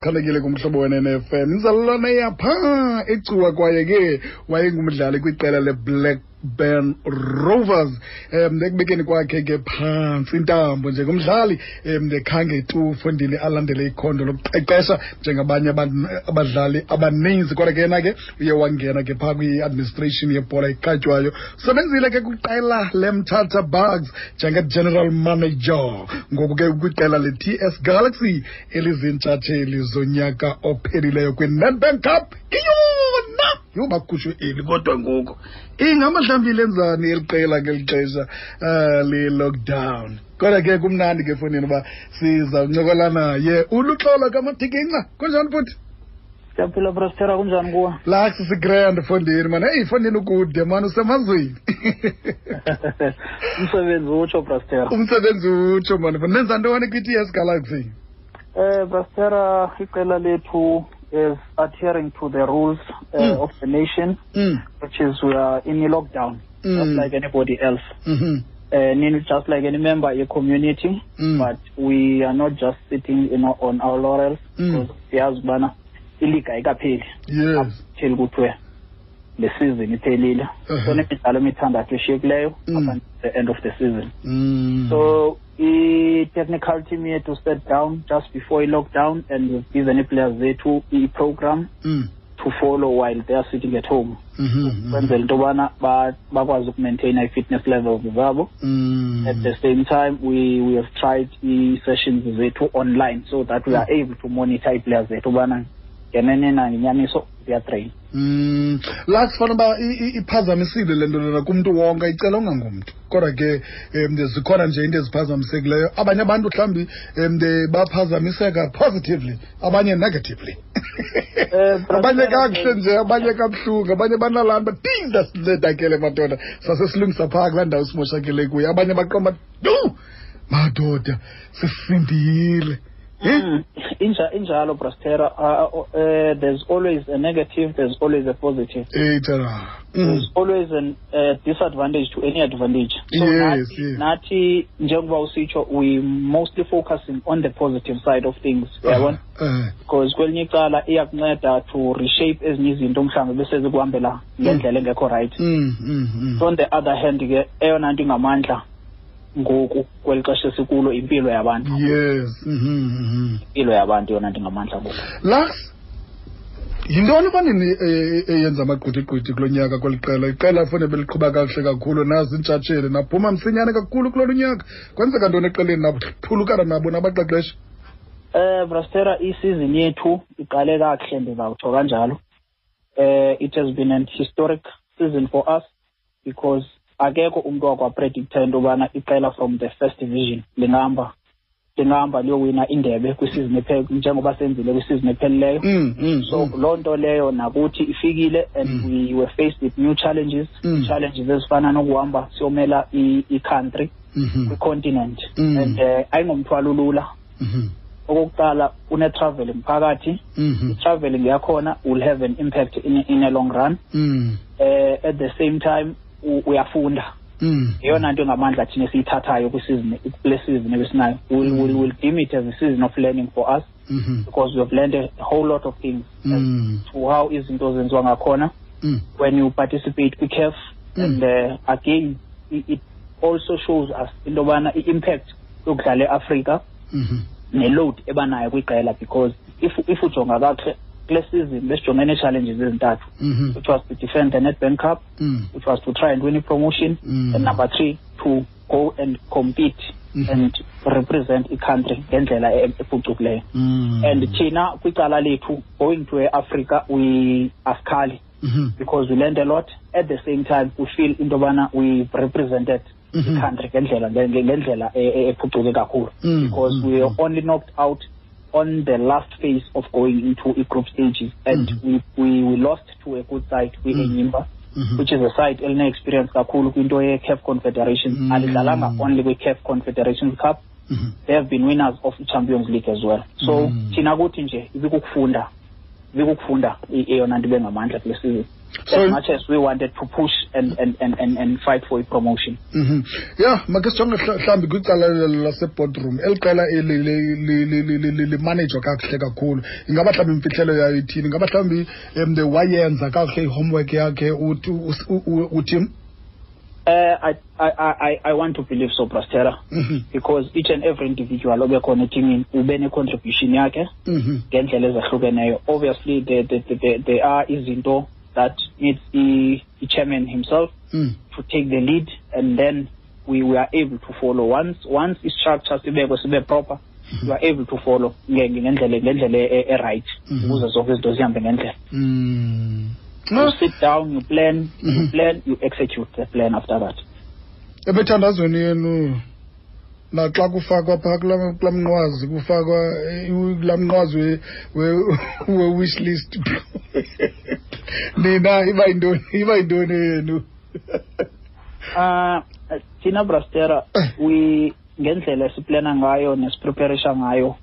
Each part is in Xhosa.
Khalekile kumhlobo wenene-FM inzalelwane yapha eCuwa, kwaye ke wayengumdlali kwiqela leBlackburn Rovers. Ekubekeni kwakhe ke phantsi intambo njengomdlali, khange tu fondini alandele ikhondo lokuqeqesha njengabanye abadlali abaninzi, kodwa ke yena ke uye wangena ke phaa kwi-administration yebhola ekhatywayo. Usebenzile ke kwiqela leMthatha Bucks njenge-general manager, ngoku ke kwiqela le-TS Galaxy eliziintshatsheli zonyaka ophelileyo kwi-Nedbank Cup. Iyona yho, bakhutshwe eli, kodwa ngoku ingamahlambile enzani eli qela ngeli xesha le-lockdown? Kodwa ke kumnandi ke efowunini uba sizawuncokola naye uLuxolo kaMatikinca. Kunjani, bhuti? Siyaphila, Brastera, kunjani kuwe? Lax, sigrand fondini mani. Eyi fondini, ukude mani, usemazweni. Umsebenzi utsho, Brastera. Umsebenzi utsho mani. Nenza ntoni kwi-TS Galaxy? Brastera, iqela lethu is adhering to the rules of the nation, which is we are in a lockdown, just like anybody else. Just like any member of community, but we are not just sitting on our laurels, because siyazi ubana iliga ayikapheli. Till kuthiwe le season iphelile. So nemidlalo emithandathu eshiyekileyo up until the end of the season. So i-technical team yethu sat down just before i-lockdown and we've given i-players zethu i-program to follow while they are sitting at home, kwenzela into yobana bakwazi ukumaintaina i-fitness levels zabo. At the same time, we have tried ii-sessions zethu online so that we are able to monitor ii-players zethu ubana ngenene na ngenyaniso ziyatrain. La sifana uba iphazamisile le nto lena kumntu wonke, icela ungangumntu, kodwa ke zikhona nje into eziphazamisekileyo. Abanye abantu mhlawumbi baphazamiseka positively, abanye negatively, abanye kakuhle nje, abanye kabuhlungu, abanye banalaa nto tinda sincedakele madoda, sasesilungisa phaa kulaa ndawo simoshakele kuyo, abanye baqomba du madoda sisindile. Injalo, Brastera. There's always a negative, there's always a positive. There's always an disadvantage to any advantage. So nathi, nathi njengoba usitsho, we mostly focusing on the positive side of things. Uyabona? Because kwelinye icala iyakunceda to reshape ezinye izinto mhlawumbe bese zikuhambela ngendlela engekho right. So on the other hand ke, eyona nto ingamandla ngoku kweli xesha esikulo, impilo yabantu. Impilo yabantu yona nto ingamandla ngoku. Lux, yintoni fanini eyenza amagqwithigqwithi kulo nyaka kweli qela? Iqela fune beliqhuba kakuhle kakhulu, nazi iintshatsheli, naphuma msinyane kakhulu kulolu nyaka. Kwenzeka ntoni eqeleni naphulukana nabo nabaqeqeshi? Brastera, isizini yethu iqale kakuhle, ndizawutsho kanjalo. It has been an historic season for us because akekho umntu wakwapredicta into yobana iqela from the first division lingahamba liyowina indebe kwisizini njengoba senzile kwisizini ephelileyo. So loo nto leyo nakuthi ifikile and we were faced with new challenges, challenges ezifana nokuhamba siyomela i-country kwi-continent, and ayingomthwalo lula. Okokuqala, une-traveling phakathi. I-traveling yakhona will have an impact in a long run. At the same time, uyafunda. Yeyona nto engamandla thina esiyithathayo kwisizini, kule season ebesinayo. We'll deem it as a season of learning for us because we have learned a whole lot of things as to how izinto zenziwa ngakhona when you participate kwi-CAF. And again, it also shows us into yobana i-impact yokudlala eAfrika ne-load ebanayo kwiqela, because if ujonga kakuhle kule season besijongene nee-challenges ezintathu, which was to defend the Nedbank Cup, which was to try and win a promotion, and number three, to go and compete and represent i-country ngendlela ephucukileyo. And thina kwicala lethu, going to e-Africa, we asikhali because we learned a lot. At the same time, we feel into yobana we represented i-country ngendlela ephucuke kakhulu, because we were only knocked out on the last phase of going into i-group stages, and we lost to a good side kwi-Enyimba, which is a side eline-experience kakhulu kwinto ye-CAF Confederation. Alidlalanga only kwi-CAF Confederation Cup, they have been winners of i-Champions League as well. So thina kuthi nje ibikukufunda eyona nto ibe ngamandla kule season. So, As much as we wanted to push and fight for a promotion. Yeah, make sijonge mhlawumbi kwicala laseboardroom. Eli qela eli limanejwa kakuhle kakhulu. Ingaba mhlawumbi imfihlelo yayo ithini? Ingaba mhlawumbi wayenza kakuhle i-homework yakhe uTim? I want to believe so, Brastera, because each and every individual obekhona etimini ube ne-contribution yakhe ngendlela ezahlukeneyo. Obviously, there are izinto that needs the chairman himself to take the lead, and then we are able to follow. Once i-structure sibekwe sibe proper, you are able to follow ngendlela e-right ukuze zonke izinto zihambe ngendlela. You sit down, you plan, you plan, you execute the plan after that. Ebethandazweni yenu naxa kufakwa phaa kulaa mnqwazi, kufakwa kulaa mnqwazi we-wish list, nina iba yintoni yenu? Thina Brastera, we ngendlela esiplana ngayo nesipreparisha ngayo,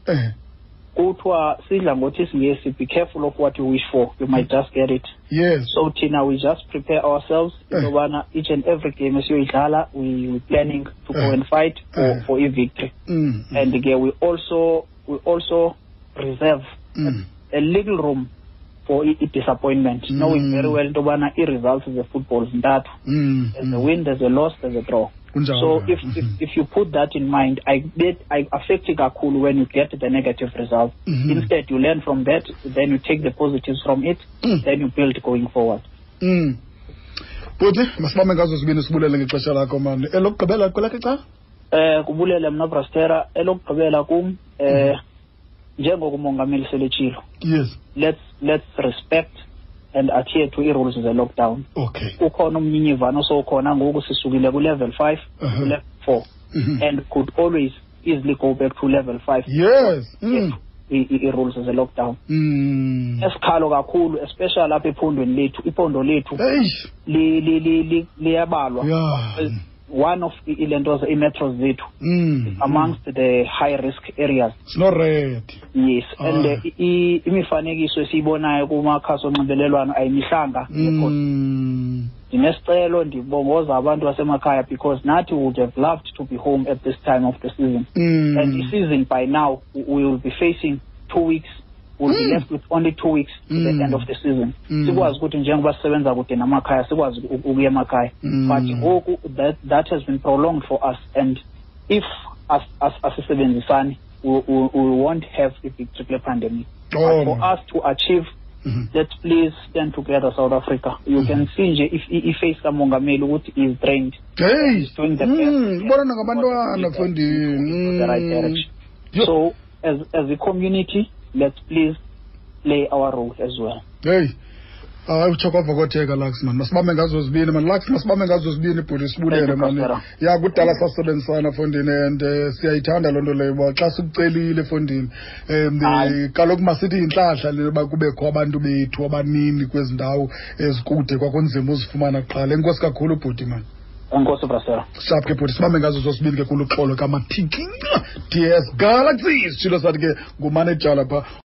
kuthiwa sidla ngothi isiNgesi, be careful of what you wish for, you might just get it. Yes. So thina we just prepare ourselves into yobana each and every game esiyoyidlala, we planning to go and fight for a victory. And ke we also reserve a little room for i-disappointment, knowing very well into yobana ii-results ze-football zintathu. There's a win, there's a loss, there's a draw. So if you put that in mind, I affect it kakhulu when you get the negative result. Instead, you learn from that, then you take the positives from it, then you build going forward. Bhuti, masibambe ngazo zibini sibulele ngexesha lakho mani. Elokugqibela kwelakhe icala? Kubulele mna Brastera, elokugqibela kum njengoko umongameli seletshilo. Yes. Let's respect and adhere to i-rules ze-lockdown. Okay. Ukhona umnyinyivano sowukhona ngoku, sisukile ku-level 5 to level 4, and could always easily go back to level 5. Yes. I-rules ze-lockdown. Esikhalo kakhulu, especially apha ephondweni lethu, iphondo lethu liyabalwa. Yeah. One of ilentoza i-metros zethu amongst the high risk areas. It's not red. Yes, and imifanekiso esiyibonayo kumakhasi onxibelelwano ayimihlanga. Ndinesicelo, ndibongoza abantu basemakhaya, because nathi would have loved to be home at this time of the season. And the season by now we will be facing 2 weeks. We'll be left with only 2 weeks to the end of the season. Sikwazi ukuthi njengoba sisebenza kude namakhaya, sikwazi ukuya emakhaya. But ngoku that has been prolonged for us, and if asisebenzisani, we won't have a big triple pandemic. But for us to achieve, let's please stand together, South Africa. You can see nje if i-face kamongameli ukuthi is drained. Hey, He's doing the best. Ubona ngabantwana mfondini. The right direction. So as a community, let's please play our role as well. Hey, hayi utsho kwavokotheka Lux man. Masibambe ngazo zibini man. Lux, masibambe ngazo zibini bhuti, sibulele man. Ya kudala sasebenzisana fondini, and siyayithanda loo nto leyo uba xa sikucelile fondini. Kaloku masithi yintlahla le yoba kubekho abantu bethu abanini kwezi ndawo ezikude, kwakunzima uzifumana kuqala. Enkosi kakhulu bhuti man. Enkosi Brasera. Sharp ke bhuti, sibambe ngazo zosibini ke kuluxolo kaMathikinca DS Galaxy. Sitshilo sathi ke ngumanejala phaa.